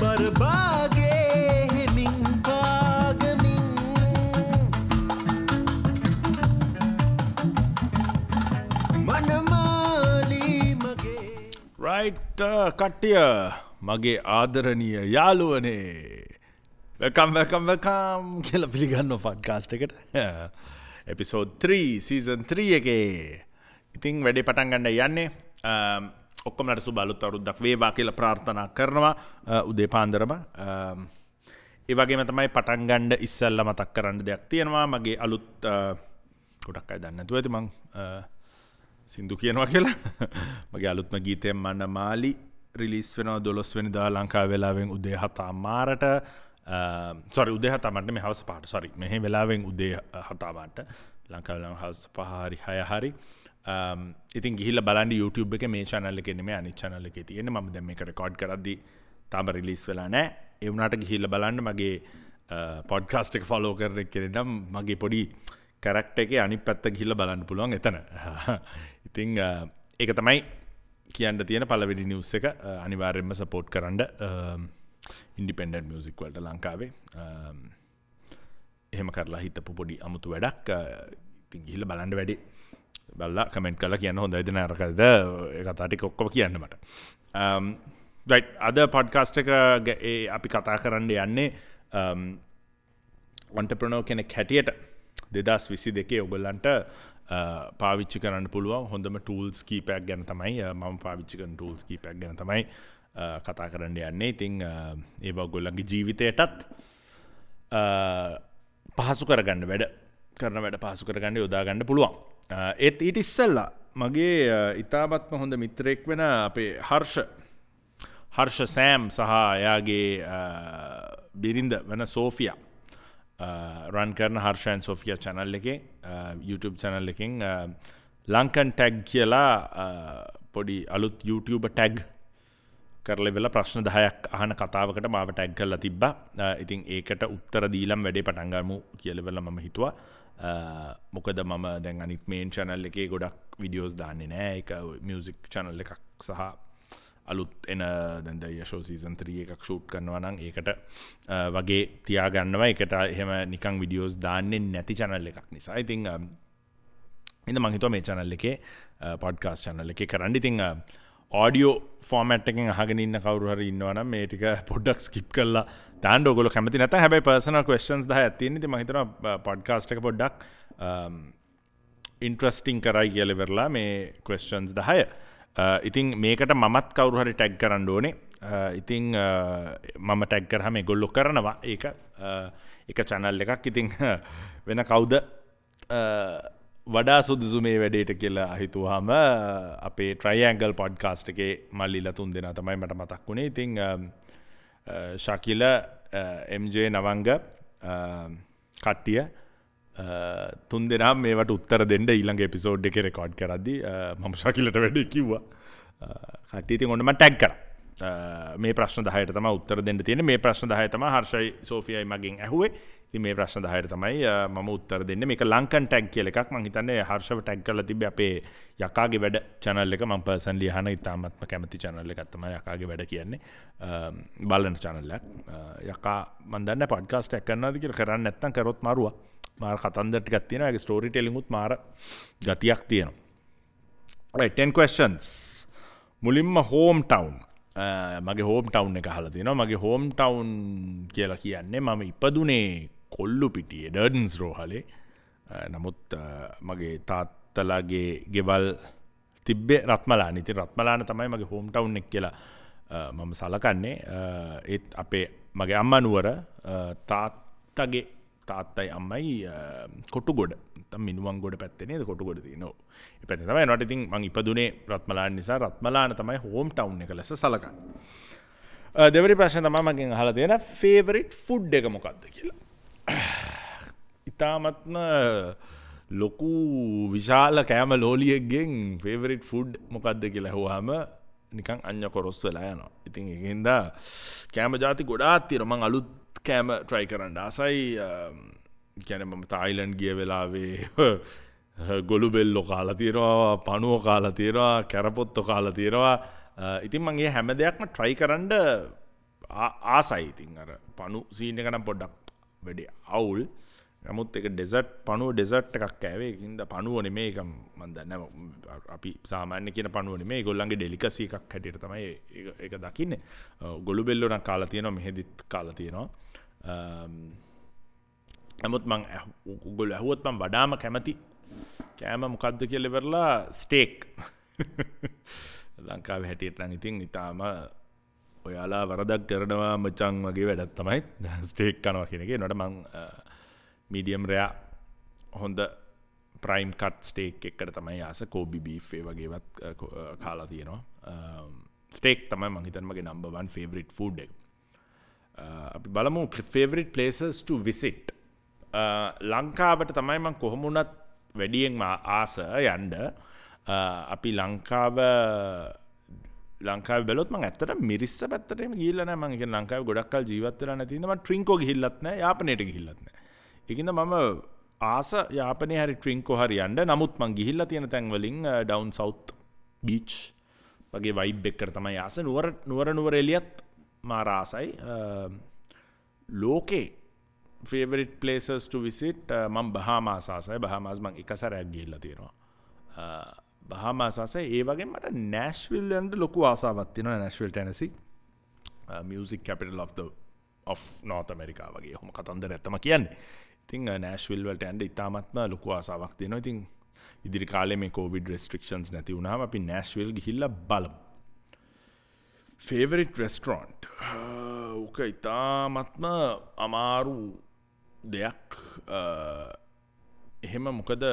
බරබාගේ හෙමින් පාගමින් මනමාලී මගේ. රයිට් කට්ටිය, මගේ ආදරණීය යාළුවනේ, welcome welcome welcome කියලා පිළිගන්නවා පොඩ්කාස්ට් එකට. එපිසෝඩ් 3 සීසන් 3 එකේ. ඉතින් වැඩේ පටන් ගන්න යන්නේ. ඔක්කොමලට සුබ අලුත් අවුරුද්දක් වේවා කියලා ප්‍රාර්ථනා කරනවා උදේ පාන්දරම. ඒ වගේම තමයි පටන් ගන්න ඉස්සෙල්ලා මතක් කරන්න දෙයක් තියෙනවා. මගේ අලුත්, ගොඩක් අය දන්නේ නැතුව ඇති මං සින්දු කියනවා කියලා. මගේ අලුත්ම ගීතය මනමාලි රිලීස් වෙනවා 12 වෙනිදා ලංකාවේ වෙලාවෙන් උදේ 7:00. සෝරි, උදේ 7:00 නෙමෙයි, හවස 5ට. සෝරි, මෙහි වෙලාවෙන් උදේ 7:00 ලංකාවේ වෙලාවෙන් හවස 5 හරි 6 හරි. ඉතින් ගිහිල්ලා බලන්න YouTube එකේ, මේ channel එකේ නෙමෙයි අනිත් channel එකේ තියෙන්නේ. මම දැන් මේක රෙකෝඩ් කරද්දි තාම රිලීස් වෙලා නැහැ. ඒ වුණාට ගිහිල්ලා බලන්න මගේ පොඩ්කාස්ට් එක ෆලෝ කරන කෙනෙක් නම් මගේ පොඩි කැරක්ටර් එකේ අනිත් පැත්ත ගිහිල්ලා බලන්න පුළුවන් එතන. ඉතින් ඒක තමයි කියන්න තියෙන පළවෙනි නිවුස් එක. අනිවාර්යයෙන්ම සපෝට් කරන්න ඉන්ඩිපෙන්ඩන්ට් මියුසික් වලට ලංකාවේ. එහෙම කරලා හිතපු පොඩි අමුතු වැඩක්. ඉතින් ගිහිල්ලා බලන්න වැඩි. බලලා කමෙන්ට් කරලා කියන්න හොඳයිද නරකද ඒ කතා ටික ඔක්කොම කියන්න මට. රයිට්, අද පොඩ්කාස්ට් එක ඒ අපි කතා කරන්න යන්නේ ඔන්ටර්ප්‍රෙනර් කෙනෙක් හැටියට 2022 ඔයගොල්ලන්ට පාවිච්චි කරන්න පුළුවන් හොඳම ටූල්ස් කීපයක් ගැන තමයි, මම පාවිච්චි කරන ටූල්ස් කීපයක් ගැන තමයි කතා කරන්න යන්නේ. ඉතින් ඒවා ඔයගොල්ලන්ගේ ජීවිතයටත් පහසු කරගන්න, වැඩ කරන වැඩ පහසු කරගන්න යොදා ගන්න පුළුවන්. ඒත් ඊට ඉස්සෙල්ලා මගේ ඉතාමත්ම හොඳ මිත්‍රයෙක් වෙන අපේ හර්ෂ සෑම් සහ එයාගේ බිරිඳ වෙන සෝෆියා රන් කරන හර්ෂ ඇන්ඩ් සෝෆියා චැනල් එකේ, YouTube channel එකෙන් ලංකන් ටැග් කියලා පොඩි අලුත් YouTube tag කරලා ඉවරලා ප්‍රශ්න 10ක් අහන කතාවකට මාව ටැග් කරලා තිබ්බා. ඉතින් ඒකට උත්තර දීලම් වැඩේ පටන් ගමු කියලා ඉවරලා මම හිතුවා. මොකද මම දැන් අනිත් මේන් චැනල් එකේ ගොඩක් වීඩියෝස් දාන්නේ නෑ. ඒක මියුසික් චැනල් එකක් සහ අලුත් එන දැන් ද යෂෝ සීසන් 3 එකක් ෂූට් කරනවා නම් ඒකට වගේ තියාගන්නවා. ඒකට එහෙම නිකන් වීඩියෝස් දාන්නේ නැති චැනල් එකක් නිසා. ඉතින් ඉතින් මං හිතුවා මේ චැනල් එකේ, පොඩ්කාස්ට් චැනල් එකේ කරන්න. ඉතින් ඔඩියෝ ෆෝමැට් එකෙන් අහගෙන ඉන්න කවුරු හරි ඉන්නවා නම් මේ ටික පොඩ්ඩක් ස්කිප් කරලා දාන්න ඔයගොල්ලෝ කැමති නැත්නම්. හැබැයි පර්සනල් ක්වෙස්චන්ස් 10ක් තියෙන. ඉතින් මං හිතනවා පොඩ්කාස්ට් එක පොඩ්ඩක් ඉන්ට්‍රස්ටිං කරයි කියලා ඉවරලා මේ ක්වෙස්චන්ස් 10. ඉතින් මේකට මමත් කවුරු හරි ටැග් කරන්න ඕනේ. ඉතින් මම ටැග් කරාම ඒගොල්ලෝ කරනවා. ඒක එක චැනල් එකක්. ඉතින් වෙන කවුද වඩා සුදුසු මේ වැඩේට කියලා හිතුවාම අපේ ට්‍රයිඇන්ගල් පොඩ්කාස්ට් එකේ මල්ලිලා තුන් දෙනා තමයි මට මතක් වුණේ. ඉතින් ශකිල, MJ නවංග කට්ටිය තුන් දෙනා මේවට උත්තර දෙන්න ඊළඟ එපිසෝඩ් එකේ රෙකෝඩ් කරද්දි මම ශකිලට වැඩේ කිව්වා. කට්ටිය ඉතින් ඔන්න මම ටැග් කරා. මේ ප්‍රශ්න 10ට තමයි උත්තර දෙන්න තියෙන්නේ. මේ ප්‍රශ්න 10 තමයි හර්ෂයි සෝෆියයි මගෙන් ඇහුවේ. ඉතින් මේ ප්‍රශ්න 10ට තමයි මම උත්තර දෙන්නේ. මේක ලංකන් ටැග් කියලා එකක්. මං හිතන්නේ හර්ෂව ටැග් කරලා තිබ්බේ අපේ යකාගේ වැඩ චැනල් එක. මං පර්සනලි අහන ඉතාමත්ම කැමති චැනල් එකක් තමයි යකාගේ වැඩ කියන්නේ. බලන චැනල් එකක්. යකා මං දන්නේ නැහැ පොඩ්කාස්ට් එකක් කරනවද කියලා. කරන්නේ නැත්නම් කරොත් මාරුවා. මාර කතන්දර ටිකක් තියෙනවා. ඒකේ ස්ටෝරි ටෙලිං උත් මාර ගතියක් තියෙනවා. Right, 10 questions. මුලින්ම හෝම් ටවුන්. මගේ හෝම් ටවුන් එක අහලා තියෙනවා. මගේ හෝම් ටවුන් කියලා කියන්නේ මම ඉපදුනේ කොල්ලුපිටියේ ඩර්ඩන්ස් රෝහලේ. නමුත් මගේ තාත්තලාගේ ගෙවල් තිබ්බේ රත්මලාන. ඉතින් රත්මලාන තමයි මගේ හෝම් ටවුන් එක කියලා මම සලකන්නේ. ඒත් අපේ මගේ අම්මා නුවර, තාත්තගේ තාත්තයි අම්මයි කොටුගොඩ, නැත්නම් මිනුවන්ගොඩ පැත්තේ නේද කොටුගොඩ තියෙන්නේ. ඔව්. ඒ පැත්තේ තමයි. එනකොට ඉතින් මං ඉපදුනේ රත්මලාන නිසා රත්මලාන තමයි හෝම් ටවුන් එක ලෙස සලකන්නේ. දෙවෙනි ප්‍රශ්නේ තමයි මගෙන් අහලා තියෙන ෆේවරිට් ෆුඩ් එක මොකක්ද කියලා. ඉතාමත්ම ලොකු විශාල කෑම ලෝලියෙක්ගෙන් ෆේවරිට් ෆුඩ් මොකක්ද කියලා ඇහුවාම නිකන් අඤ්ඤ කොරස් වෙලා යනවා. ඉතින් ඒකෙන්ද කෑම ජාති ගොඩාක් තියෙනවා. මං අලුත් කෑම ට්‍රයි කරන්න ආසයි. කියන්නේ මම තායිලන්ඩ් ගිය වෙලාවේ ගොළු බෙල්ලෝ කාලා තියෙනවා, පණුව කාලා තියෙනවා, කැරපොත්තෝ කාලා තියෙනවා. ඉතින් මං ඒ හැම දෙයක්ම ට්‍රයි කරන්න ආසයි. ඉතින් අර පණු සීන් එක නම් පොඩ්ඩක් වැඩි අවුල්. නමුත් ඒක ඩෙසර්ට්, පණුව ඩෙසර්ට් එකක් කෑවේ. ඒකින්ද පණුව නෙමෙයි, ඒක මං දන්නේ නැහැ, අපි සාමාන්‍ය කියන පණුව නෙමෙයි, ඒගොල්ලන්ගේ ඩෙලිකසි එකක් හැටියට තමයි ඒක දකින්නේ. ගොළු බෙල්ලෝ නම් කාලා තියෙනවා, මෙහෙදිත් කාලා තියෙනවා. නමුත් මං ඔයගොල්ලෝ ඇහුවොත් මං වඩාම කැමති කෑම මොකද්ද කියලා ඉවරලා ස්ටේක්. ලංකාවේ හැටියට නම් ඉතින් ඉතාලම ඔයාලා වරදක් කරනවා මචං වගේ වැඩක් තමයි ස්ටේක් කනවා කියන එක. ඒනට මං මීඩියම් රෙයා හොඳ ප්‍රයිම් කට් ස්ටේක් එකකට තමයි ආස. කෝබි බීෆ් ඒ වගේවත් කාලා තියෙනවා. ස්ටේක් තමයි මං හිතන්නේ මගේ නම්බර් 1 ෆේවරිට් ෆුඩ් එක. අපි බලමු ෆේවරිට් ප්ලේසස් ටු විසිට්. ලංකාවට තමයි මං කොහොම වුණත් වැඩියෙන්ම ආස යන්න. අපි ලංකාවේ බැලුවොත් මං ඇත්තටම මිරිස්ස පැත්තට එහෙම ගිහිල්ලා නෑ. මං ඒ කියන්නේ ලංකාවේ ගොඩක් කල් ජීවත් වෙලා නැති හින්දා මං ට්‍රින්කෝ ගිහිල්ලත් නෑ, යාපනයට ගිහිල්ලත් නෑ. ඒකින්ද මම ආස යාපනයේ හරි ට්‍රින්කෝ හරි යන්න. නමුත් මං ගිහිල්ලා තියෙන තැන් වලින් ඩවුන් සවුත් බීච් වගේ වයිබ් එකකට තමයි ආස. නුවර නුවර එළියත් මාර ආසයි. ලෝකේ ෆේවරිට් ප්ලේසස් ටු විසිට් මං බහාමාස් ආසයි. බහාමාස් මං එක සැරයක් ගිහිල්ලා තියෙනවා. බහාමාස් ආසයි. ඒ වගේම මට නෑෂ්විල් යන්න ලොකු ආසාවක් තියෙනවා. Nashville Tennessee, music capital of North America වගේ ඔහොම කතන්දරයක් තමයි කියන්නේ. ඉතින් නෑෂ්විල් වලට යන්න ඉතාමත්ම ලොකු ආසාවක් තියෙනවා. ඉතින් ඉදිරි කාලේ මේ කොවිඩ් රෙස්ට්‍රික්ෂන්ස් නැති වුණාම අපි නෑෂ්විල් ගිහිල්ලා බලමු. ෆේවරිට් රෙස්ටොරන්ට් ඕක ඉතාමත්ම අමාරු දෙයක්. එහෙම මොකද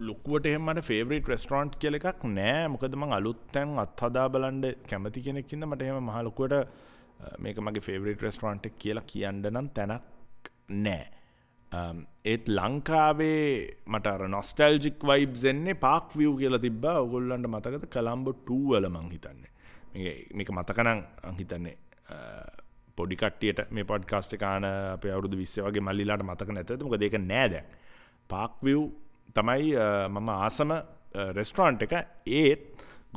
ලොකුවට එහෙම මට ෆේවරිට් රෙස්ටොරන්ට් කියලා එකක් නෑ. මොකද මං අලුත් තැන් අත්හදා බලන්න කැමති කෙනෙක් හින්දා මට එහෙම මහා ලොකුවට මේක මගේ ෆේවරිට් රෙස්ටොරන්ට් එක කියලා කියන්න නම් තැනක් නෑ. ඒත් ලංකාවේ මට අර නොස්ටැල්ජික් වයිබ්ස් එන්නේ පාක් විව් කියලා තිබ්බා. ඔයගොල්ලන්ට මතකද කොලම්බෝ 2 වල මං හිතන්නේ. මේක මතක නම් මං හිතන්නේ පොඩි කට්ටියට මේ පොඩ්කාස්ට් එක ආන අපේ අවුරුදු 20 වගේ මල්ලිලාට මතක නැතද? මොකද ඒක නෑ දැන්. පාක් විව් තමයි මම ආසම රෙස්ටොරන්ට් එක. ඒත්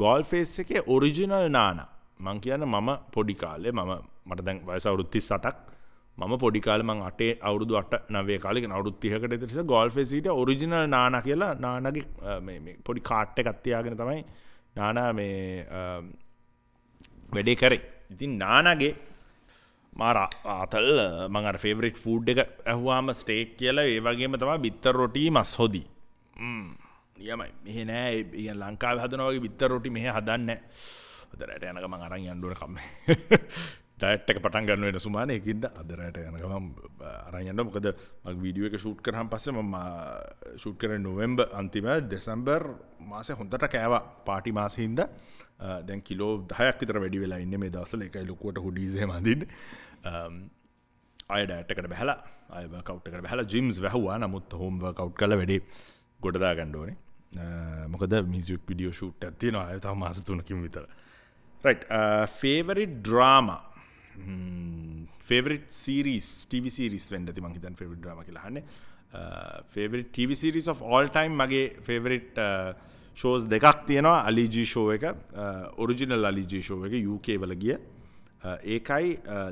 ගෝල් ෆේස් එකේ ඔරිජිනල් නානා. මං කියන්නේ මම පොඩි කාලේ, මට දැන් වයස අවුරුදු 38ක්. මම පොඩි කාලේ මං අටේ අවුරුදු 8 9 කාලේ කියන අවුරුදු 30කට විතර ඉස්සර ගෝල් ෆේස් හිටිය ඔරිජිනල් නානා කියලා නානාගේ මේ පොඩි කාට් එකක් තියාගෙන තමයි නානා මේ වැඩේ කරේ. ඉතින් නානාගේ මාර ආතල් මං අර ෆේවරිට් ෆුඩ් එක ඇහුවාම ස්ටේක් කියලා, ඒ වගේම තමයි බිත්තර රොටි මස් හොදි. නියමයි. මෙහෙ නෑ, ඒ කියන්නේ ලංකාවේ හදනවා වගේ බිත්තර රොටි මෙහෙ හදන්නේ නෑ. අද රැට යන ගමන් අරන් යන්න ඕන කම්ම. ඩයට් එක පටන් ගන්න වෙන සුමානේ. ඒකින්ද අද රැට යන ගමන් අරන් යන්න. මොකද මම වීඩියෝ එක ෂූට් කරාන් පස්සේ මම ෂූට් කරේ නොවැම්බර් අන්තිම දෙසැම්බර් මාසේ හොඳට කෑවා පාටි මාසෙ හින්දා. දැන් කිලෝ 10ක් විතර වැඩි වෙලා ඉන්නේ මේ දවස්වල. ඒකයි ලොකුවට හුඩීස් එහෙම අඳින්නේ. ආය ඩයට් එකට බහැලා, ආය වර්ක්අවුට් එකට බහැලා ජිම්ස් වැහුවා. නමුත් හෝම් වර්ක්අවුට් කරලා වැඩි ගොඩ දා ගන්න ඕනේ. මොකද මියුසික් වීඩියෝ ෂූට් එකක් තියෙනවා ආය තව මාස 3කින් විතර. Right, favorite drama, favorite series, TV series වෙන්න ඇති මං හිතන්නේ favorite drama කියලා අහන්නේ. Favorite TV series of all time මගේ favorite shows දෙකක් තියෙනවා. Ali G show එක, original Ali G show එක UK වල ගිය. ඒකයි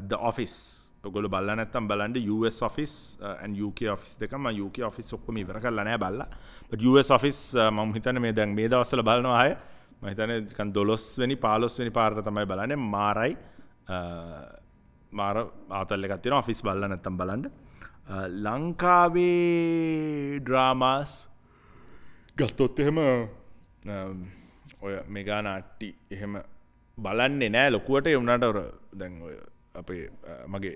The Office. ඔයගොල්ලෝ බලලා නැත්තම් බලන්න US Office and UK Office දෙක. මම UK Office ඔක්කොම ඉවර කරලා නෑ බලලා. But US Office මම හිතන්නේ මේ දැන් මේ දවස්වල බලනවා ආයේ. මම හිතන්නේ නිකන් 12 වෙනි 15 වෙනි පාරට තමයි බලන්නේ. මාරයි. මාර ආතල් එකක් තියෙනවා. ඔෆිස් බලලා නැත්තම් බලන්න. ලංකාවේ ඩ්‍රාමාස් ගත්තොත් එහෙම ඔය මෙගා නාට්‍ය එහෙම බලන්නේ නෑ ලොකුවට. ඒ වුණාට අර දැන් ඔය අපේ මගේ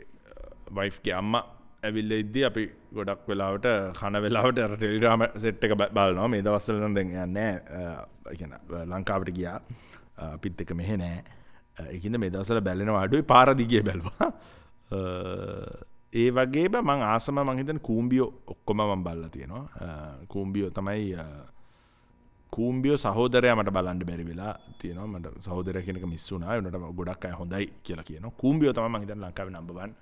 වයිෆ්ගේ අම්මා ඇවිල්ලා ඉද්දි අපි ගොඩක් වෙලාවට කන වෙලාවට අර ටෙලිඩ්‍රාමා සෙට් එක බලනවා. මේ දවස්වල නම් දැන් යන්නේ නෑ. ඒ කියන්නේ ලංකාවට ගියා. අපිත් එක්ක මෙහෙ නෑ. ඒකින්ද මේ දවස්වල බැලෙනවා අඩුයි. පාර දිගේ බැලුවා. ඒ වගේම මං ආසම මං හිතන්නේ කූම්බියෝ ඔක්කොම මං බලලා තියෙනවා. කූම්බියෝ තමයි කූම්බියෝ සහෝදරයා මට බලන්න බැරි වෙලා තියෙනවා. මට සහෝදරයා කියන එක මිස් වුණා. ඒ වුණාට ගොඩක් අය හොඳයි කියලා කියනවා. කූම්බියෝ තමයි මං හිතන්නේ ලංකාවේ නම්බර් 1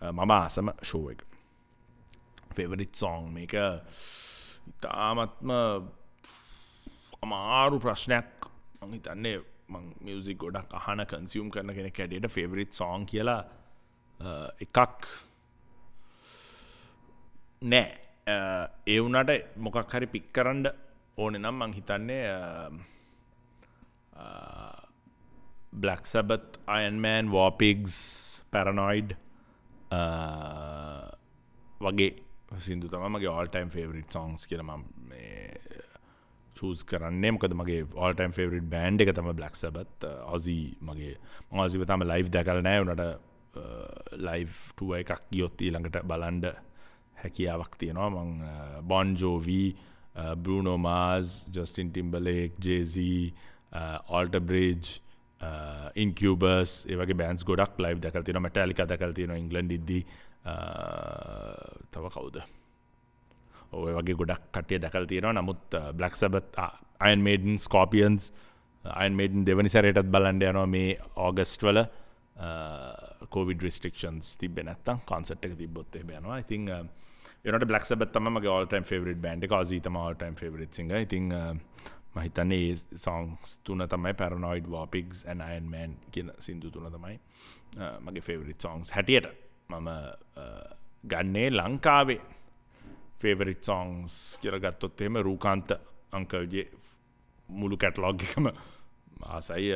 මම ආසම ෂෝ එක. ෆේවරිට් සෝං මේක ඉතාමත්ම අමාරු ප්‍රශ්නයක්. මං හිතන්නේ මං මියුසික් ගොඩක් අහන කන්සියුම් කරන කෙනෙක් හැටියට ෆේවරිට් සෝං කියලා එකක් නෑ. ඒ වුණාට මොකක් හරි පික් කරන්න ඕනේ නම් මං හිතන්නේ Black Sabbath, Iron Man, War Pigs, Paranoid වගේ සින්දු තමයි මගේ all time favorite songs කියලා මම මේ චූස් කරන්නේ. මොකද මගේ all time favorite band එක තමයි Black Sabbath. Ozzy මගේ මම Ozzyව තාම ලයිව් දැකලා නෑ. උනාට ලයිව් ටුවර් එකක් ගියොත් ඊළඟට බලන්න හැකියාවක් තියෙනවා. මං Bon Jovi, Bruno Mars, Justin Timberlake, Jay-Z, Alter Bridge, Incubus ඒ වගේ බෑන්ඩ්ස් ගොඩක් ලයිව් දැකලා තියෙනවා. Metallica දැකලා තියෙනවා ඉංග්ලන්ඩ් ඉද්දි. තව කවුද? ඔව් ඒ වගේ ගොඩක් කට්ටිය දැකලා තියෙනවා. නමුත් Black Sabbath, Iron Maiden, Scorpions, Iron Maiden දෙවනි සැරේටත් බලන්න යනවා මේ ඕගස්ට් වල. කොවිඩ් රිස්ට්‍රික්ෂන්ස් තිබ්බේ නැත්තම් කොන්සර්ට් එක තිබ්බොත් එහෙම යනවා. ඉතින් ඒ වුණාට Black Sabbath තමයි මගේ all time favorite band එක. Ozzy තමයි all time favorite singer. ඉතින් මම හිතන්නේ ඒ songs තුන තමයි Paranoid, War Pigs and Iron Man කියන සින්දු තුන තමයි මගේ favorite songs හැටියට මම ගන්නේ. ලංකාවේ favorite songs කියලා ගත්තොත් එහෙම රූකාන්ත අංකල්ගේ මුළු කැටලොග් එකම ආසයි.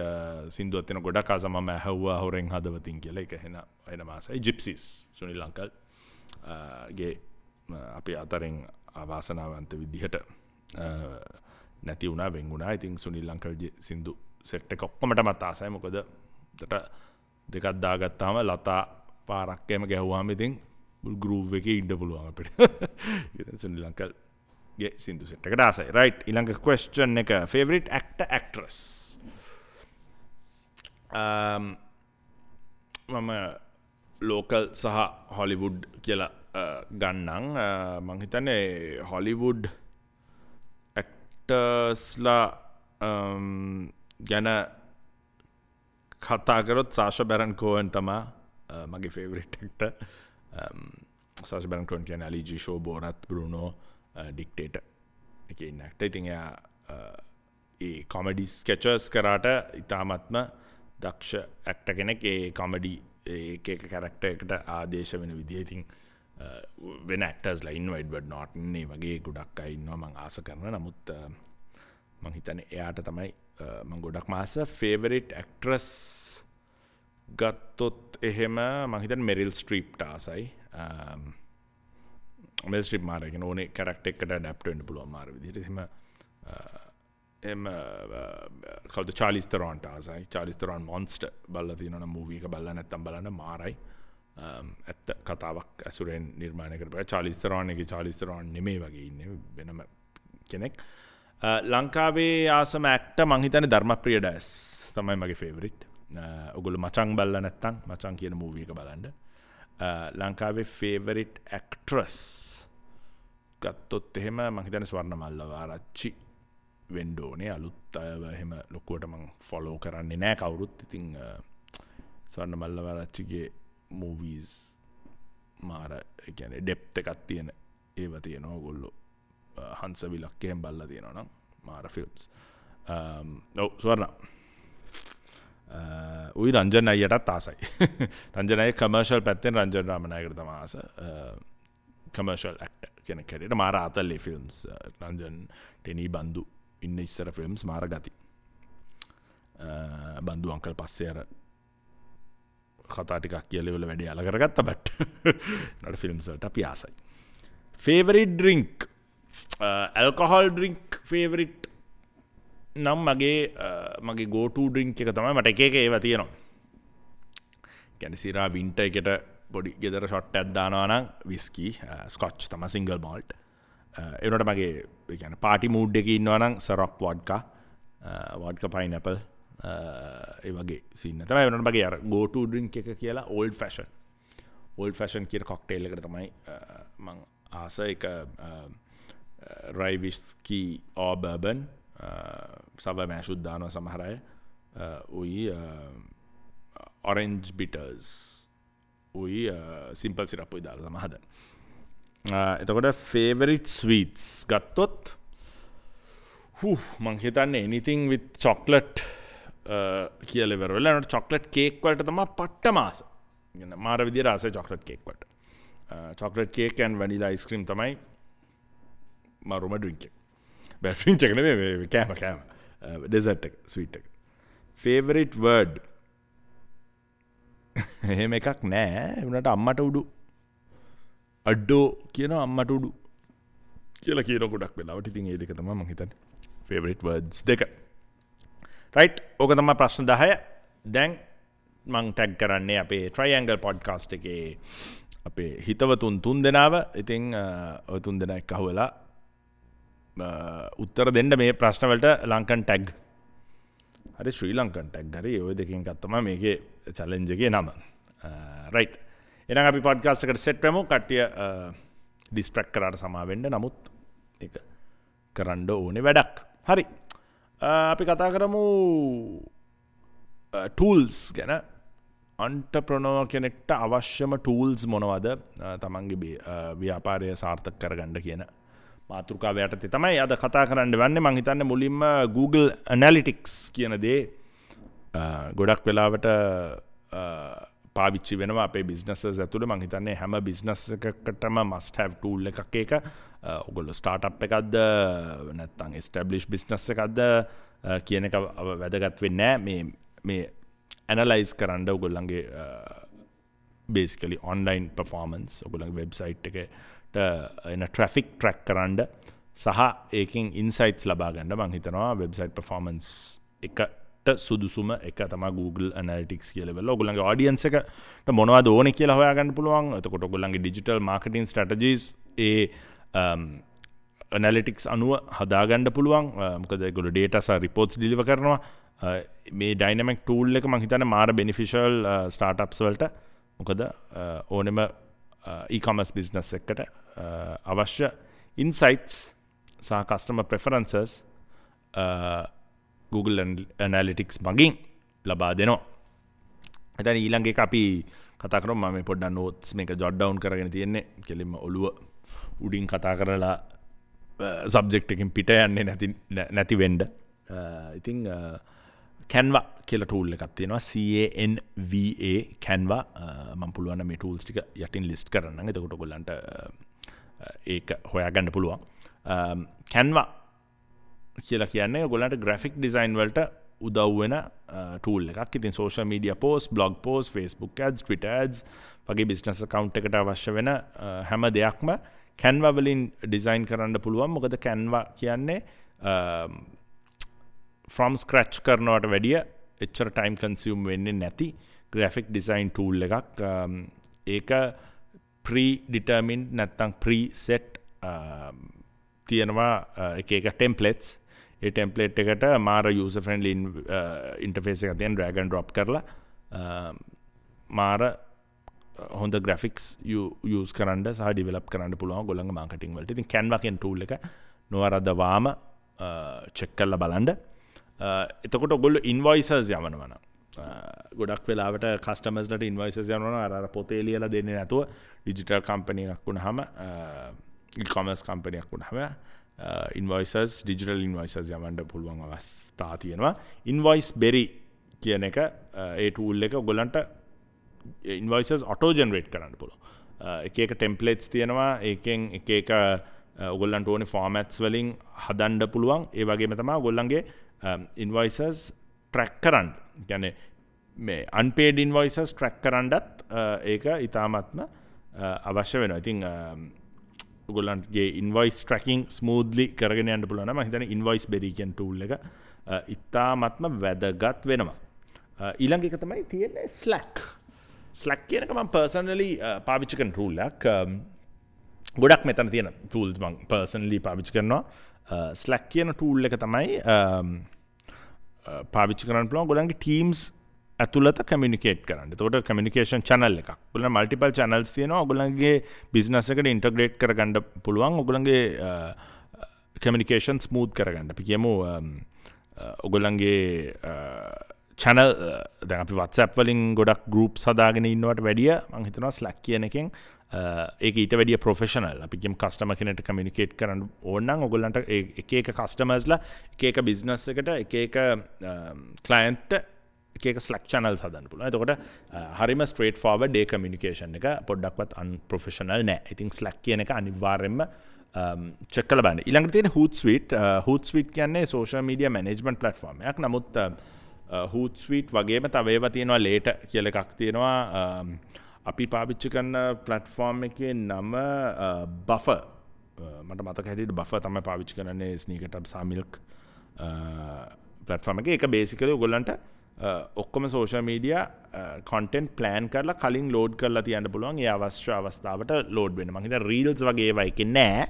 සින්දුවක් තියෙන ගොඩක් ආස මම ඇහුවා හොරෙන් හදවතින් කියලා. ඒක එන ආසයි. ජිප්සිස් සුනිල් අංකල් ගේ අපි අතරින් අවාසනාවන්ත විදිහට නැති වුණා, වෙන් වුණා. ඉතින් සුනිල් අංකල්ගේ සින්දු සෙට් එක ඔක්කොමටමත් ආසයි. මොකද උඩට දෙකක් දාගත්තාම ලතා පාරක් එහෙම ගැහුවාම ඉතින් මුල් ගෲව් එකේ ඉන්න පුළුවන් අපිට. ඉතින් සුනිල් අංකල්ගේ සින්දු සෙට් එකට ආසයි. රයිට්, ඊළඟ ක්වෙස්චන් එක ෆේවරිට් ඇක්ටර් ඇක්ට්‍රස්. මම ලෝකල් සහ හොලිවුඩ් කියලා ගන්නම්. මං හිතන්නේ හොලිවුඩ් ඇක්ටර්ස්ලා ගැන කතා කරොත් සාෂා බැරන් කෝවන් තමා මගේ ෆේවරිට් ඇක්ටර්. සාෂා බැරන් කෝවන් කියන්නේ අලි ජී ෂෝ, බෝරත්, බ්‍රුනෝ, ඩික්ටේටර් එකේ ඉන්න ඇක්ටර්. ඉතින් එයා ඒ කොමඩි ස්කෙචස් කරාට ඉතාමත්ම දක්ෂ ඇක්ටර් කෙනෙක්. ඒ කොමඩි එක එක කැරක්ටර් එකට ආදේශ වෙන විදිය. ඉතින් වෙන ඇක්ටර්ස්ලා ඉන්නවා, එඩ්වඩ් නෝටන් ඒ වගේ ගොඩක් අය ඉන්නවා මං ආස කරන. නමුත් මං හිතන්නේ එයාට තමයි මං ගොඩක්ම ආස. ෆේවරිට් ඇක්ට්‍රස් ගත්තොත් එහෙම මං හිතන්නේ මෙරිල් ස්ට්‍රීප්ට ආසයි. මෙරිල් ස්ට්‍රීප් මාර කියන ඕනේ කැරක්ටර් එකකට ඇඩැප්ට් වෙන්න පුළුවන් මාර විදිහට. එහෙම එහෙම කවුද චාලිස් තෙරොන්ට ආසයි. චාලිස් තෙරොන් මොන්ස්ටර් බලලා තියෙනවා නම් මූවි එක බලලා නැත්තම් බලන්න මාරයි. ඇත්ත කතාවක් ඇසුරෙන් නිර්මාණය කරපු චාලිස් තෙරොන් එකේ චාලිස් තෙරොන් නෙමෙයි වගේ ඉන්නේ වෙනම කෙනෙක්. ලංකාවේ ආසම ඇක්ටර් මං හිතන්නේ ධර්මප්‍රිය ඩයස් තමයි මගේ ෆේවරිට්. ඔයගොල්ලෝ මචං බලලා නැත්තම් මචං කියන මූවි එක බලන්න. ලංකාවේ ෆේවරිට් ඇක්ට්‍රස් ගත්තොත් එහෙම මං හිතන්නේ ස්වර්ණ මල්ලවාරච්චි වෙන්න ඕනේ. අලුත් අයව එහෙම ලොකුවට මං ෆලෝ කරන්නේ නෑ කවුරුත්. ඉතින් ස්වර්ණ මල්ලවාරච්චිගේ මූවීස් මාර ඒ කියන්නේ ඩෙප්ත් එකක් තියෙන ඒවා තියෙනවා. ඔයගොල්ලෝ හංස විලක්ක එහෙම බලලා තියෙනවා නම් මාර ෆිල්ම්ස්. ඔව් ස්වර්ණ. උයි රංජන් අයියටත් ආසයි. රංජන් අයියා කමර්ෂල් පැත්තෙන් රංජන් රාමනායකට තමයි ආස. කමර්ෂල් ඇක්ටර් කෙනෙක් හැටියට මාර ආතල් ඒ ෆිල්ම්ස්. රංජන් ටෙනි බන්දු ඉන්න ඉස්සර ෆිල්ම්ස් මාර ගති. බන්දු අංකල් පස්සේ අර කතා ටිකක් කියලා ඉවල වැඩේ අල කරගත්තා. බට් නට ෆිල්ම්ස් වලට අපි ආසයි. Favourite drink, alcohol drink favourite නම් මගේ go to drink එක තමයි මට එක එක ඒවා තියෙනවා. කියන්නේ සිරා වින්ටර් එකට පොඩි ගෙදර ෂොට් එකක් දානවා නම් විස්කි, ස්කොච් තමයි සිංගල් මෝල්ට්. ඒ වුණාට මගේ ඒ කියන්නේ පාටි මූඩ් එකේ ඉන්නවා නම් සරොක් වොඩ්කා, වොඩ්කා පයිනැපල් ඒ වගේ සීන් එක තමයි. ඒ වුණාට මගේ අර go to drink එක කියලා ඕල්ඩ් ෆැෂන්. ඕල්ඩ් ෆැෂන් කියන කොක්ටේල් එකට තමයි මං ආස. ඒක රයි විස්කි ඕ බර්බන්, සබ මෑෂුත් දානවා සමහර අය. උයි ඔරෙන්ජ් බිටර්ස් උයි සිම්පල් සිරප් උයි දාලා තමයි හදන්නේ. එතකොට ෆේවරිට් ස්වීට්ස් ගත්තොත් මං හිතන්නේ anything with chocolate කියලා ඉවර වෙලා එනකොට චොක්ලට් කේක් වලට තමයි පට්ටම ආස. මාර විදියට ආසයි චොක්ලට් කේක් වලට. Chocolate cake and vanilla ice cream තමයි මරුම ඩ්‍රින්ක් එක. බෑ, ඩ්‍රින්ක් එක නෙමෙයි, මේ කෑම කෑම. ඩෙසර්ට් එක, ස්වීට් එක. ෆේවරිට් වර්ඩ් එහෙම එකක් නෑ. ඒ වුණාට අම්මට උඩු අඩෝ කියනවා, අම්මට උඩු කියලා කියන ගොඩක් වෙලාවට. ඉතින් ඒ දෙක තමයි මං හිතන්නේ ෆේවරිට් වර්ඩ්ස් දෙක. රයිට්, ඕක තමයි ප්‍රශ්න 10. දැන් මං ටැග් කරන්නේ අපේ ට්‍රයිඇන්ගල් පොඩ්කාස්ට් එකේ අපේ හිතවතුන් තුන් දෙනාව. ඉතින් ඔය තුන් දෙනා එක්ක අහුවෙලා උත්තර දෙන්න මේ ප්‍රශ්න වලට ලංකන් ටැග් හරි ශ්‍රී ලංකන් ටැග් හරි ඔය දෙකෙන් එකක් තමයි මේකේ චැලෙන්ජ් එකේ නම. රයිට්, එහෙනම් අපි පොඩ්කාස්ට් එකට සෙට් වෙමු. කට්ටිය ඩිස්ට්‍රැක්ට් කරාට සමා වෙන්න, නමුත් ඒක කරන්න ඕනේ වැඩක්. හරි, අපි කතා කරමු ටූල්ස් ගැන. අන්ටර්ප්‍රනර් කෙනෙක්ට අවශ්‍යම ටූල්ස් මොනවද තමන්ගේ ව්‍යාපාරය සාර්ථක කරගන්න කියන මාතෘකාව යටතේ තමයි අද කතා කරන්න වෙන්නේ. මං හිතන්නේ මුලින්ම Google Analytics කියන දේ ගොඩක් වෙලාවට පාවිච්චි වෙනවා අපේ බිස්නසස් ඇතුළේ. මං හිතන්නේ හැම බිස්නස් එකකටම must have tool එකක් ඒක. ඔයගොල්ලෝ ස්ටාර්ට්අප් එකක්ද නැත්නම් එස්ටැබ්ලිෂ් බිස්නස් එකක්ද කියන එක වැදගත් වෙන්නේ නෑ. මේ ඇනලයිස් කරන්න ඔයගොල්ලන්ගේ බේසිකලි ඔන්ලයින් පර්ෆෝමන්ස්, ඔයගොල්ලන්ගේ වෙබ්සයිට් එකට එන ට්‍රැෆික් ට්‍රැක් කරන්න සහ ඒකෙන් ඉන්සයිට්ස් ලබා ගන්න මං හිතනවා වෙබ්සයිට් පර්ෆෝමන්ස් එකට සුදුසුම එක තමයි Google Analytics කියලා වෙලා. ඔයගොල්ලන්ගේ ඔඩියන්ස් එකට මොනවද ඕනේ කියලා හොයාගන්න පුළුවන්. එතකොට ඔයගොල්ලන්ගේ ඩිජිටල් මාකටිං ස්ට්‍රැටජිස් ඒ ඇනලිටික්ස් අනුව හදාගන්න පුළුවන්. මොකද ඒගොල්ලෝ ඩේටා සහ රිපෝට්ස් ඩිලිවර් කරනවා. මේ ඩයිනමික් ටූල් එක මං හිතන්නේ මාර බෙනිෆිෂල් ස්ටාර්ට්අප්ස් වලට. මොකද ඕනෙම e-commerce business එකකට අවශ්‍ය ඉන්සයිට්ස් සහ කස්ටමර් ප්‍රෙෆරන්සස් Google Analytics මගින් ලබා දෙනවා. එතන ඊළඟ එක අපි කතා කරමු. මම මේ පොඩ්ඩක් නෝට්ස් මේක ජොට් ඩවුන් කරගෙන තියෙන්නේ. කෙලින්ම ඔළුව උඩින් කතා කරලා සබ්ජෙක්ට් එකකින් පිට යන්නේ නැති වෙන්න. ඉතින් Canva කියලා ටූල් එකක් තියෙනවා. CANVA Canva. මම පුළුවන් නම් මේ ටූල්ස් ටික යටින් ලිස්ට් කරන්නම්. එතකොට ඔයගොල්ලන්ට ඒක හොයාගන්න පුළුවන්. Canva කියලා කියන්නේ ඔයගොල්ලන්ට ග්‍රැෆික් ඩිසයින් වලට උදව් වෙන ටූල් එකක්. ඉතින් social media post, blog post, Facebook ads, Twitter ads වගේ බිස්නස් ඇකවුන්ට් එකට අවශ්‍ය වෙන හැම දෙයක්ම Canva වලින් ඩිසයින් කරන්න පුළුවන්. මොකද Canva කියන්නේ from scratch කරනවට වැඩිය එච්චර ටයිම් කන්සියුම් වෙන්නේ නැති ග්‍රැෆික් ඩිසයින් ටූල් එකක්. ඒක ප්‍රී ඩිටර්මින්ඩ් නැත්නම් ප්‍රී සෙට් තියෙනවා එක එක ටෙම්ප්ලේට්ස්. ඒ ටෙම්ප්ලේට් එකට මාර යූසර් ෆ්‍රෙන්ඩ්ලි ඉන්ටර්ෆේස් එකක් තියෙන, ඩ්‍රැග් ඇන්ඩ් ඩ්‍රොප් කරලා මාර හොඳ ග්‍රැෆික්ස් යූස් කරන්න සහ ඩිවෙලොප් කරන්න පුළුවන් ඔයගොල්ලන්ගේ මාකටිං වලට. ඉතින් Canva කියන ටූල් එක නොවරදවාම චෙක් කරලා බලන්න. එතකොට ඔයගොල්ලෝ ඉන්වොයිසස් යවනවා නම්, ගොඩක් වෙලාවට කස්ටමර්ස්ලට ඉන්වොයිසස් යවනවා නම් අර අර පොතේ ලියලා දෙන්නේ නැතුව ඩිජිටල් කම්පැනි එකක් වුණාම, ඊ-කොමර්ස් කම්පැනි එකක් වුණාම ඉන්වොයිසස්, ඩිජිටල් ඉන්වොයිසස් යවන්න පුළුවන් අවස්ථා තියෙනවා. ඉන්වොයිස් බෙරි කියන එක, ඒ ටූල් එක ඔයගොල්ලන්ට ඉන්වොයිසස් ඔටෝ ජෙනරේට් කරන්න පුළුවන්. එක එක ටෙම්ප්ලේට්ස් තියෙනවා. ඒකෙන් එක එක ඔයගොල්ලන්ට ඕනේ ෆෝමැට්ස් වලින් හදන්න පුළුවන්. ඒ වගේම තමයි ඔයගොල්ලන්ගේ ඉන්වොයිසස් ට්‍රැක් කරන්න. ඒ කියන්නේ මේ අන්පේඩ් ඉන්වොයිසස් ට්‍රැක් කරන්නත් ඒක ඉතාමත්ම අවශ්‍ය වෙනවා. ඉතින් ඔයගොල්ලන්ගේ ඉන්වොයිස් ට්‍රැකින් ස්මූත්ලි කරගෙන යන්න පුළුවන් නම් මම හිතන්නේ ඉන්වොයිස් බෙරි කියන ටූල් එක ඉතාමත්ම වැදගත් වෙනවා. ඊළඟ එක තමයි තියෙන්නේ Slack. Slack කියන එක මම පර්සනලි පාවිච්චි කරන ටූල් එකක්. ගොඩක් මෙතන තියෙන ටූල්ස් මම පර්සනලි පාවිච්චි කරනවා. Slack කියන ටූල් එක තමයි පාවිච්චි කරන්න පුළුවන් ඔයගොල්ලන්ගේ ටීම්ස් ඇතුළත කමියුනිකේට් කරන්න. එතකොට කමියුනිකේෂන් චැනල් එකක්. ඔයගොල්ලන් මල්ටිපල් චැනල්ස් තියෙනවා. ඔයගොල්ලන්ගේ බිස්නස් එකට ඉන්ටග්‍රේට් කරගන්න පුළුවන්. ඔයගොල්ලන්ගේ කමියුනිකේෂන් ස්මූත් කරගන්න. අපි කියමු ඔයගොල්ලන්ගේ චැනල්, දැන් අපි WhatsApp වලින් ගොඩක් ගෲප්ස් හදාගෙන ඉන්නවට වැඩිය මං හිතනවා Slack කියන එකෙන් ඒක ඊට වැඩිය ප්‍රොෆෙෂනල්. අපි කියමු කස්ටමර් කෙනෙක්ට කමියුනිකේට් කරන්න ඕන නම් ඔයගොල්ලන්ට ඒ එක එක කස්ටමර්ස්ලා එක එක බිස්නස් එකට එක එක ක්ලයන්ට්ට එක එක Slack channels හදන්න පුළුවන්. එතකොට හරිම ස්ට්‍රේට් ෆෝවර්ඩ් ඒ කමියුනිකේෂන් එක පොඩ්ඩක්වත් අන්ප්‍රොෆෙෂනල් නෑ. ඉතින් Slack කියන එක අනිවාර්යයෙන්ම චෙක් කරලා බලන්න. ඊළඟට තියෙන Hootsuite. Hootsuite කියන්නේ සෝෂල් මීඩියා මැනේජ්මන්ට් ප්ලැට්ෆෝම් එකක්. නමුත් Hootsuite වගේම තව ඒවා තියෙනවා, Later කියලා එකක් තියෙනවා. අපි පාවිච්චි කරන ප්ලැට්ෆෝම් එකේ නම Buffer. මට මතක හැටියට Buffer තමයි පාවිච්චි කරන්නේ Sneaker Tub සහ Milk platform එකේ. ඒක බේසිකලි ඔයගොල්ලන්ට ඔක්කොම සෝෂල් මීඩියා කන්ටෙන්ට් ප්ලෑන් කරලා කලින් ලෝඩ් කරලා තියන්න පුළුවන්. ඒ අවශ්‍ය අවස්ථාවට ලෝඩ් වෙන්න. මං හිතන්නේ රීල්ස් වගේ ඒවා එකේ නෑ.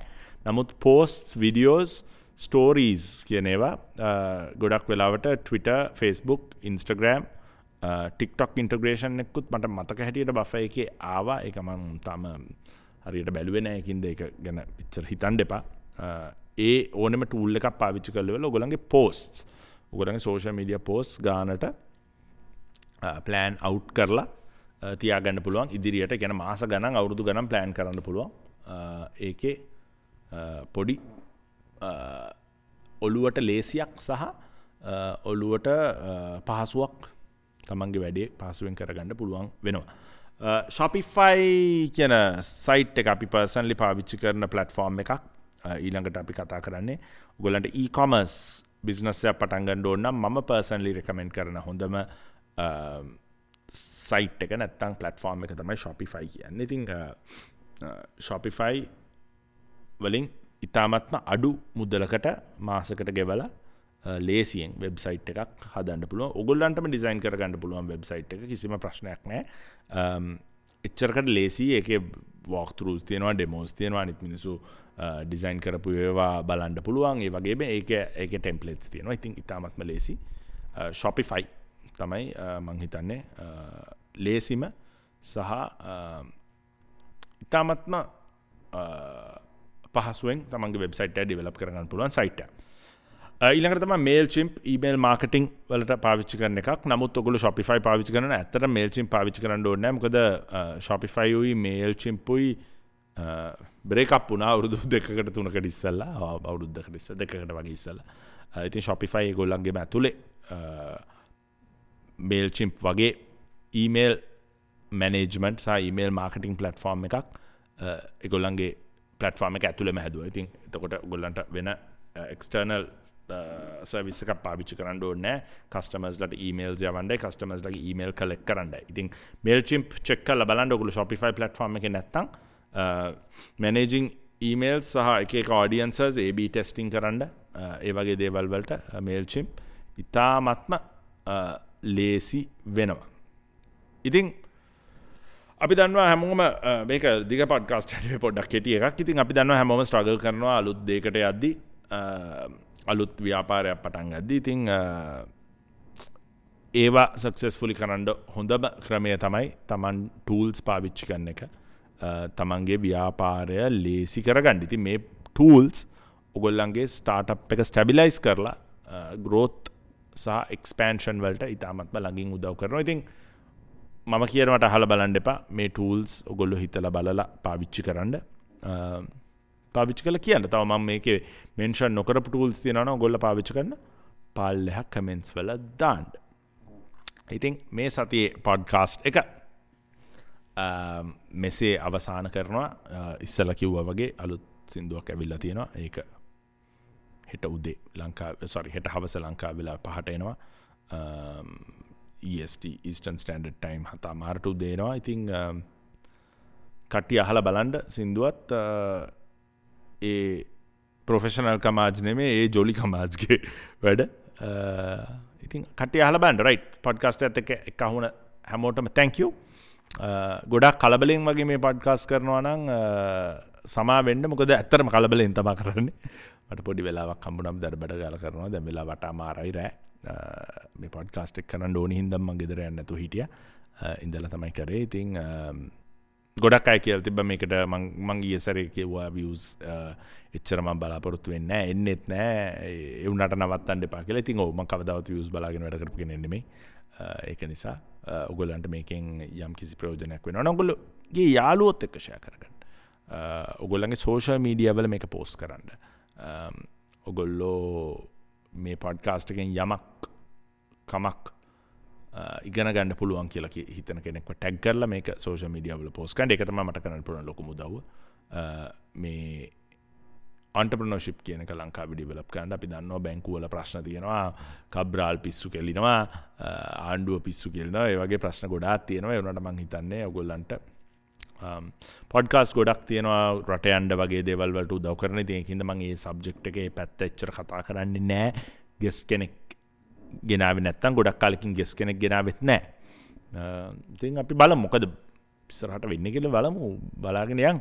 නමුත් පෝස්ට්ස්, වීඩියෝස්, ස්ටෝරීස් කියන ඒවා ගොඩක් වෙලාවට Twitter, Facebook, Instagram, TikTok integration එකකුත් මට මතක හැටියට Buffer එකේ ආවා. ඒක මං තාම හරියට බැලුවේ නෑ. ඒකින්ද ඒක ගැන එච්චර හිතන්න එපා. ඒ ඕනෙම ටූල් එකක් පාවිච්චි කරලා ඉවරලා ඔයගොල්ලන්ගේ පෝස්ට්ස්, ඔයගොල්ලන්ගේ සෝෂල් මීඩියා පෝස්ට්ස් ගානට ප්ලෑන් අවුට් කරලා තියාගන්න පුළුවන් ඉදිරියට. ඒ කියන්නේ මාස ගණන්, අවුරුදු ගණන් ප්ලෑන් කරන්න පුළුවන්. ඒකේ පොඩි ඔළුවට ලේසියක් සහ ඔළුවට පහසුවක් තමන්ගේ වැඩේ පහසුවෙන් කරගන්න පුළුවන් වෙනවා. Shopify කියන සයිට් එක අපි පර්සනලි පාවිච්චි කරන ප්ලැට්ෆෝම් එකක්. ඊළඟට අපි කතා කරන්නේ ඔයගොල්ලන්ට e-commerce business එකක් පටන් ගන්න ඕන නම් මම පර්සනලි රෙකමෙන්ඩ් කරන හොඳම සයිට් එක නැත්තම් ප්ලැට්ෆෝම් එක තමයි Shopify කියන්නේ. ඉතින් Shopify වලින් ඉතාමත්ම අඩු මුදලකට මාසකට ගෙවලා ලේසියෙන් වෙබ්සයිට් එකක් හදන්න පුළුවන්. ඔයගොල්ලන්ටම ඩිසයින් කරගන්න පුළුවන් වෙබ්සයිට් එක, කිසිම ප්‍රශ්නයක් නෑ. එච්චරකට ලේසි. ඒකේ වෝක් ත්‍රූස් තියෙනවා, ඩෙමෝස් තියෙනවා, අනිත් මිනිස්සු ඩිසයින් කරපු ඒවා බලන්න පුළුවන්. ඒ වගේම ඒකේ ටෙම්ප්ලේට්ස් තියෙනවා. ඉතින් ඉතාමත්ම ලේසි. Shopify තමයි මං හිතන්නේ ලේසිම සහ ඉතාමත්ම පහසුවෙන් තමන්ගේ වෙබ්සයිට් එක ඩෙවලොප් කරගන්න පුළුවන් සයිට් එක. ඊළඟට තමයි MailChimp email marketing වලට පාවිච්චි කරන එකක්. නමුත් ඔයගොල්ලෝ Shopify පාවිච්චි කරනවා නම් ඇත්තටම MailChimp පාවිච්චි කරන්න ඕනේ නැහැ. මොකද Shopify උයි MailChimp උයි බ්‍රේක් අප් වුණා අවුරුදු දෙකකට තුනකට ඉස්සෙල්ලා, අවුරුද්දකට ඉස්සෙල්ලා, දෙකකට වගේ ඉස්සෙල්ලා. ඉතින් Shopify ඒගොල්ලන්ගේම ඇතුලේ MailChimp වගේ email management සහ email marketing platform එකක් ඒගොල්ලන්ගේ platform එක ඇතුලේම හැදුවා. ඉතින් එතකොට ඔයගොල්ලන්ට වෙන external service එකක් පාවිච්චි කරන්න ඕනේ නෑ. කස්ටමර්ස්ලාට emails යවන්නයි, කස්ටමර්ස්ලාගේ email collect කරන්නයි. ඉතින් MailChimp check කරලා බලන්න ඔයගොල්ලෝ Shopify platform එකේ නැත්තම් managing emails සහ එක එක audiences A/B testing කරන්න, ඒ වගේ දේවල් වලට MailChimp ඉතාමත්ම ලේසි වෙනවා. ඉතින් අපි දන්නවා හැමෝම මේක දිග පොඩ්කාස්ට් එකේ පොඩ්ඩක් කෙටි එකක්. ඉතින් අපි දන්නවා හැමෝම ස්ට්‍රගල් කරනවා අලුත් දෙයකට යද්දි, අලුත් ව්‍යාපාරයක් පටන් ගද්දි. ඉතින් ඒවා සක්සස්ෆුලි කරන්න හොඳම ක්‍රමය තමයි තමන් ටූල්ස් පාවිච්චි කරන එක, තමන්ගේ ව්‍යාපාරය ලේසි කරගන්න. ඉතින් මේ ටූල්ස් ඔයගොල්ලන්ගේ ස්ටාර්ට්අප් එක ස්ටැබිලයිස් කරලා ග්‍රෝත් සහ එක්ස්පෑන්ෂන් වලට ඉතාමත්ම ළඟින් උදව් කරනවා. ඉතින් මම කියනවට අහලා බලන්න එපා. මේ ටූල්ස් ඔයගොල්ලෝ හිතලා බලලා පාවිච්චි කරන්න. පාවිච්චි කරලා කියන්න. තව මම මේකේ මෙන්ෂන් නොකරපු ටූල්ස් තියෙනවා නම් ඔයගොල්ලෝ පාවිච්චි කරන්න පල්ලෙහා කමෙන්ට්ස් වල දාන්න. ඉතින් මේ සතියේ පොඩ්කාස්ට් එක මෙසේ අවසන් කරනවා. ඉස්සලා කිව්වා වගේ අලුත් සින්දුවක් ඇවිල්ලා තියෙනවා. ඒක හෙට උදේ ලංකාවේ, සෝරි හෙට හවස ලංකාවේ වෙලාව 5ට එනවා. EST Eastern Standard Time 7:30 උදේ එනවා. ඉතින් කට්ටිය අහලා බලන්න සින්දුවත් ඒ ප්‍රොෆෙෂනල් කමාජ් නෙමෙයි, ඒ ජොලි කමාජ්ගේ වැඩ. ඉතින් කට්ටිය අහලා බලන්න. රයිට්, පොඩ්කාස්ට් එකත් එක්ක එක අහුන හැමෝටම thank you. ගොඩක් කලබලෙන් වගේ මේ පොඩ්කාස්ට් කරනවා නම් සමා වෙන්න, මොකද ඇත්තටම කලබලෙන් තමයි කරන්නේ. මට පොඩි වෙලාවක් හම්බුනම දඩබඩ ගාලා කරනවා. දැන් වෙලාව 8:30යි රෑ. මේ පොඩ්කාස්ට් එක කරන්න ඕනි හින්දා මං ගෙදර යන්න නැතුව හිටියා. ඉඳලා තමයි කරේ. ඉතින් ගොඩක් අය කියලා තිබ්බා මේකට මං ගිය සැරේ කිව්වා views එච්චර මං බලාපොරොත්තු වෙන්නේ නෑ, එන්නෙත් නෑ, ඒ වුණාට නවත්තන්න එපා කියලා. ඉතින් ඔව්, මං කවදාවත් views බලාගෙන වැඩ කරපු කෙනෙක් නෙමෙයි. ඒක නිසා ඔයගොල්ලන්ට මේකෙන් යම් කිසි ප්‍රයෝජනයක් වෙනවා නම් ඔයගොල්ලෝගේ යාළුවොත් එක්ක ෂෙයා කරගන්න. ඔයගොල්ලන්ගේ සෝෂල් මීඩියා වල මේක පෝස්ට් කරන්න. ඔයගොල්ලෝ මේ පොඩ්කාස්ට් එකෙන් යමක් කමක් ඉගෙන ගන්න පුළුවන් කියලා හිතන කෙනෙක්ව ටැග් කරලා මේක සෝෂල් මීඩියා වල පෝස්ට් කරන්න. ඒක තමයි මට කරන්න පුළුවන් ලොකුම උදව්ව. මේ ඔන්ටර්ප්‍රෙනර්ෂිප් කියන එක ලංකාවේ ඩෙවලොප් කරන්න අපි දන්නවා බැංකු වල ප්‍රශ්න තියෙනවා, කබ්‍රාල් පිස්සු කෙලිනවා, ආණ්ඩුව පිස්සු කෙලිනවා, ඒ වගේ ප්‍රශ්න ගොඩාක් තියෙනවා. ඒ වුණාට මං හිතන්නේ ඔයගොල්ලන්ට පොඩ්කාස්ට් ගොඩක් තියෙනවා රට යන්න වගේ දේවල් වලට උදව් කරන. ඉතින් ඒකින්ද මං ඒ සබ්ජෙක්ට් එකේ පැත්ත එච්චර කතා කරන්නේ නෑ. ගෙස්ට් කෙනෙක් ගෙනාවේ නැත්තම් ගොඩක් කාලෙකින් ගෙස්ට් කෙනෙක් ගෙනාවෙත් නෑ. ඉතින් අපි බලමු මොකද ඉස්සරහට වෙන්නේ කියලා බලමු, බලාගෙන යන්.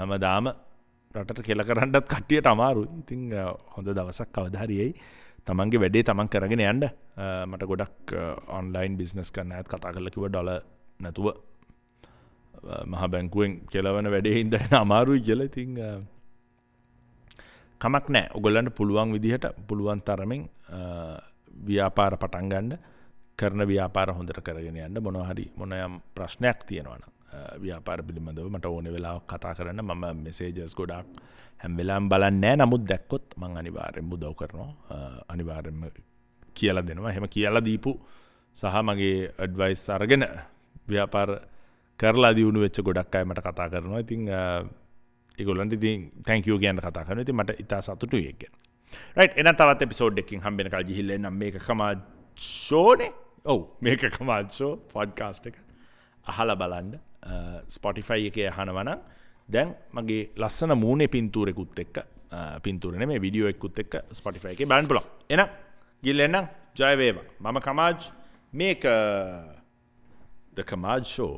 හැමදාම රටට කෙල කරන්නත් කට්ටියට අමාරුයි. ඉතින් හොඳ දවසක් කවදා හරි එයි. තමන්ගේ වැඩේ තමන් කරගෙන යන්න. මට ගොඩක් ඔන්ලයින් බිස්නස් කරන අයත් කතා කරලා කිව්වා ඩොලර් නැතුව මහ බැංකුවෙන් කෙලවන වැඩේ හින්දා එන අමාරුයි කියලා. ඉතින් කමක් නෑ. ඔයගොල්ලන්ට පුළුවන් විදිහට පුළුවන් තරමින් ව්‍යාපාර පටන් ගන්න, කරන ව්‍යාපාර හොඳට කරගෙන යන්න. මොනවා හරි මොන යම් ප්‍රශ්නයක් තියෙනවා නම් ව්‍යාපාර පිළිබඳව මට ඕනේ වෙලාවක කතා කරන්න. මම මෙසේජස් ගොඩාක් හැම වෙලාවෙම බලන්නේ නෑ. නමුත් දැක්කොත් මං අනිවාර්යෙන්ම උදව් කරනවා, අනිවාර්යෙන්ම කියලා දෙනවා. එහෙම කියලා දීපු සහ මගේ ඇඩ්වයිස් අරගෙන ව්‍යාපාර කරලා දියුණු වෙච්ච ගොඩක් අය මට කතා කරනවා. ඉතින් ඒගොල්ලන්ට ඉතින් thank you කියන්න කතා කරනවා. ඉතින් මට ඉතා සතුටුයි ඒක ගැන. රයිට්, එහෙනම් තවත් එපිසෝඩ් එකකින් හම්බ වෙනකල් ගිහිල්ලා එන්නම්. මේක කමාජ් ෂෝනේ. ඔව්, මේක කමාජ් ෂෝ පොඩ්කාස්ට් එක අහලා බලන්න. Spotify එකේ අහනවා නම් දැන් මගේ ලස්සන මූණේ පින්තූරෙකුත් එක්ක, පින්තූර නෙමෙයි වීඩියෝ එකකුත් එක්ක Spotify එකේ බලන්න පුළුවන්. එහෙනම් ගිහිල්ලා එන්නම්. ජය වේවා. මම කමාජ්, මේක The Kamaj Show.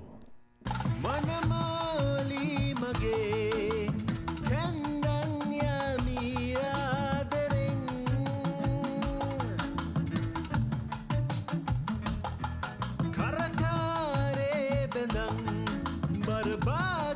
මනමාලි මගේ කන්දන් යමි ආදරෙන් කරකාරේ බඳන් බරබා